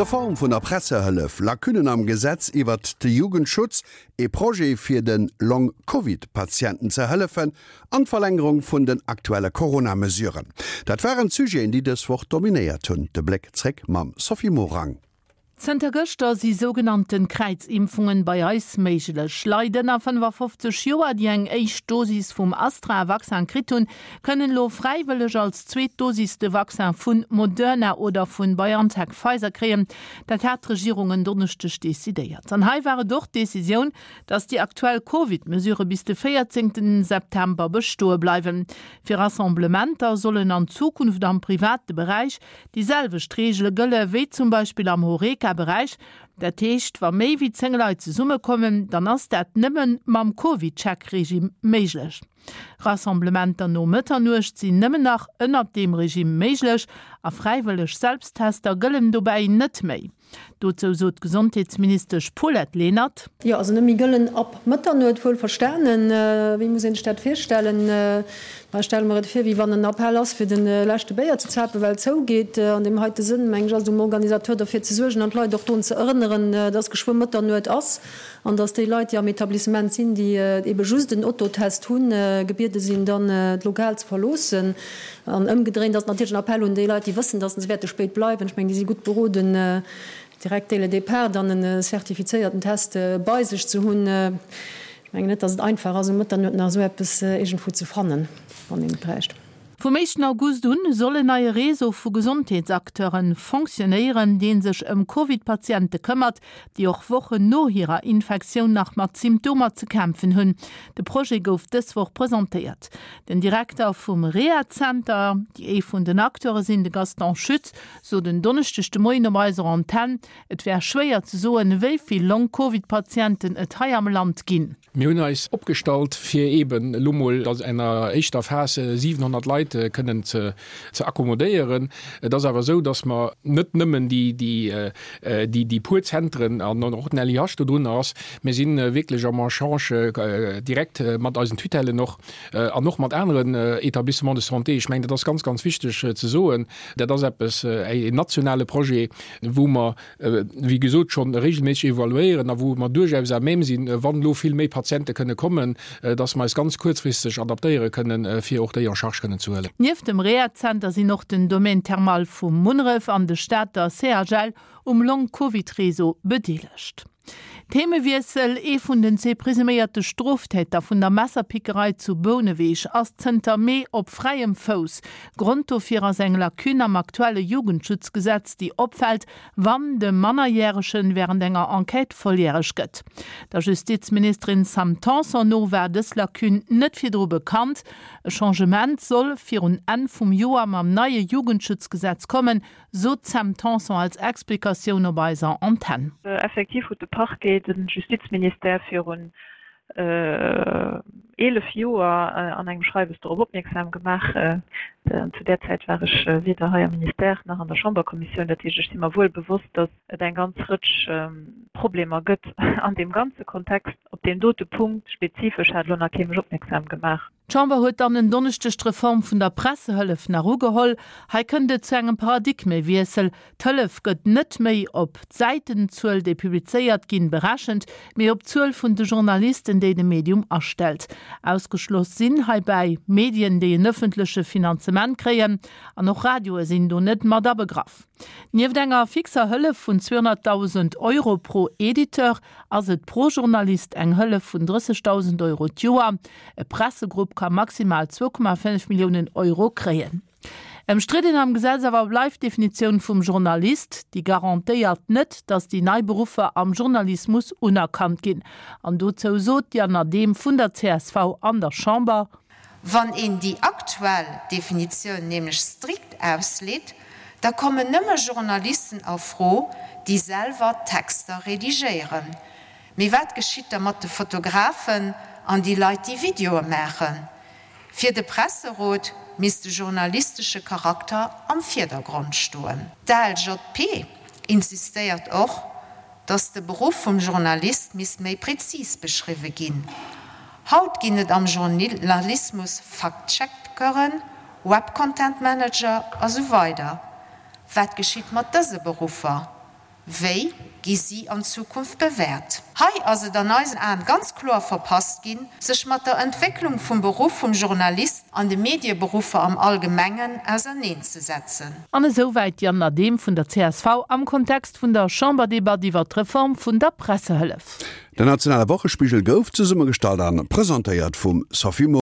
D'Reform vun der Pressehëllef, Lacunnen am Gesetz iwwert de Jugendschutz, ee Projet fir de Long-Covid-Patienten ze hëllefen an d'Verlängerung vun den aktuelle Corona-Mesuren, dat waren d'Sujeten, déi dës Woch dominéiert hunn. De Bléck zréck mam Sophie Morang. Zënter gëschter si sougenannten Kräizimpfungen bei eis méiglech. Leit ënner 55 Joer, déi eng éischt Dosis vum Astra-Vaccin kritt hunn, kënnen elo fräiwëlleg als zweet Dosis de Vaccin vun Moderna oder vun BioNTech-Pfizer kréien. Dat hat d'Regierung en Donneschdeg decidéiert. An hei war et och d'Decisioun, dass déi aktuell Covid-Mesurë bis de 14 September bestoe bleiwen. Fir Rassemblementer sollen an Zukunft am private Beräich Déi selwecht Reegele gëlle wéi zum Beispill am Horeca-Beräich. Dat heescht, wa méi wéi 10 Leit zesummekommen, dann ass dat nëmme mam CovidCheck-Regime méiglech. Rassemblementer no Mëtternuecht sinn nëmmen nach ënnert deem Regime méiglech a fräiwëlleg Selbsttester gëllen dobäi net méi. Dozou sot d'Gesondheetsministesch Paulette Lenert. Jo, also net méi gëllen ab Mëtternuet, wuel verstanen. Wéi muss een sech dat virstellen? Ma ech stelle mer et vir, wéi wann en Appell ass, fir de leschte Béier ze zapen, well et zougeet. An deem heite Sënn, meng ech, ass et um Organisateur derfir ze suergen an d'Leit och drun ze erënneren, dass geschwë Mëtternuet ass an dass déi Leit, déi am Etablissement sinn, déi ebe just en Autotest hunn, gebiede sinn, dann d'Lokal ze verloossen. An ëmgedréint ass et natierlech en Appell un déi Leit, déi wëssen, dass se wäerte spéit bleiwen. Ech mengen, déi si gutt beroden, direkt dès le départ dann en zertifizéierten Test bei sech ze hunn. Ech mengen net, dass et einfach ass, um Mëtternuet nach esou eppes iergendwou ze fannen, wann een et bräicht. Vum éischten August un soll en neie Réseau vu Gesondheetsacteure fonctionnéieren, dee sech ëm Covid-Patiente këmmert, déi och Wochen no hirer Infektioun nach mat Symptomer ze kämpfen hunn. De Projet gouf dës Woch presentéiert. Den Direkter vum Rehazenter, déi ee vun den Acteure sinn, de Gaston Schütz, sot en Donneschdeg de Moien op eiser Antenn, et wär schwéier ze soen, wéi vill Long-Covid-Patienten et hei am Land ginn. Mir hunn eis opgestallt, fir eeben elo mol an enger éischter Phas 700 Leit kënnen ze accommodéieren. Et ass awer esou, datt mer net nëmmen déi puer Zentren an och den LIH dodrunner ass. Mir si wierklech am Echange direkt mat eisen Tutellen och an och mat aneren Établissements de santé. Ech mengen, dat ass ganz, ganz wichteg ze soen. Dat ass eppes, en nationale Projet, wou mer wéi gesot, schonn regelméisseg evaluéieren a wou mer duerchaus à même sinn, wann elo vill méi Patiente kënne kommen, dass mer eis ganz kuerzfristeg adaptéiere kënnen, fir och déi en charge kënnen ze huelen. Nieft dem Rehazenter sinn och den Domaine thermal vu Munneref an de Stater CHL um Long-Covid-Réseau bedeelegt. Themewiessel, Ee vun den zwee presuméierte Stroftäter vun der Messerpickerei zu Bouneweg ass zënter Mee op fräiem Fouss. Grond dofir ass eng Lacune am aktuelle Jugendschutzgesetz, déi opfält, wann de Mannerjäregen wärend enger Enquête volljäreg gëtt. Der Justizministerin Sam Tanson no war dës Lacune net virdru bekannt. E Changement soll virun Enn vum Joer mam neie Jugendschutzgesetz kommen, Sot d'Sam Tanson als Explikatioun op eiser Antenn. Effektiv huet de Parquet de Justizministère virun 11 Joer an engem Schreiwes dorop opmierksam gemaach. Zu där Zäit war ech weder hei am Ministère nach an der Chamberkommissioun. Dat heescht, ech si mer wuel bewosst, datt et eng ganz Rëtsch Problemer gëtt an deem ganze Kontext. Op deem dote Punkt spezifesch hat elo nach kee mech opmierksam gemaach. D'Chamber huet dann en Donneschdeg d'Reform vun der Pressehëllef nach ugeholl. Hei kënnt et zu engem Paradigmewiessel, D'Hëllef gëtt net méi op d'Säitenzuel, déi publizéiert ginn, berechent, mee op d'Zuel vun de Journalisten, déi de Medium astellt. Ausgeschloss sinn heibäi Medien, déi en ëffentleche Finanzement kréien, an och Radioe sinn do net mat abegraff. Nieft enger fixer Hëllef vun 200.000 Euro pro Editeur ass et pro Journalist eng Hëllef vun 30.000 Euro d'Joer. E Pressegrupp ka maximal 2,5 Milliounen Euro kréien. Ëmstridden am Gesetz awer bleift d'Definitioun vum Journalist. Déi garantéiert net, datt déi nei Beruffer am Journalismus unerkannt ginn. An dozou sot d'Diane Adehm vun der csv an der Chamber. Wann een déi aktuell Definitioun nämlech strikt ausleet, da kommen nëmme Journalisten a Fro, déi selwer Texter redigéieren. Mee wat geschitt da mat de Fotografen an déi Leit, déi Videoe maachen? Fir de Presserot misst de journalistesche Charakter am Virdergrond stoen. D'ALJP insistéiert och, dass de Beruff vum Journalist misst méi prezis beschriwwe ginn. Haut ginn et am Journalismus Fact-Checkeren, Web-Content Manager a sou weider. Wat geschitt mat dëse Beruffer? Wéi gi si an Zukunft bewäert? Hei ass et an eisen Aen ganz kloer verpasst ginn, sech mat der Entwécklung vum Beruff vum Journalist an de Medieberuffer am Allgemengen auserneenzesetzen. An esouwäit d'Diane Adehm vun der csv am Kontext vun der Chamberdebatt iwwer d'Reform vun der Pressehëllef. Den nationale Wochespigel gouf zesummegestallt an presentéiert vum Sophie Morang.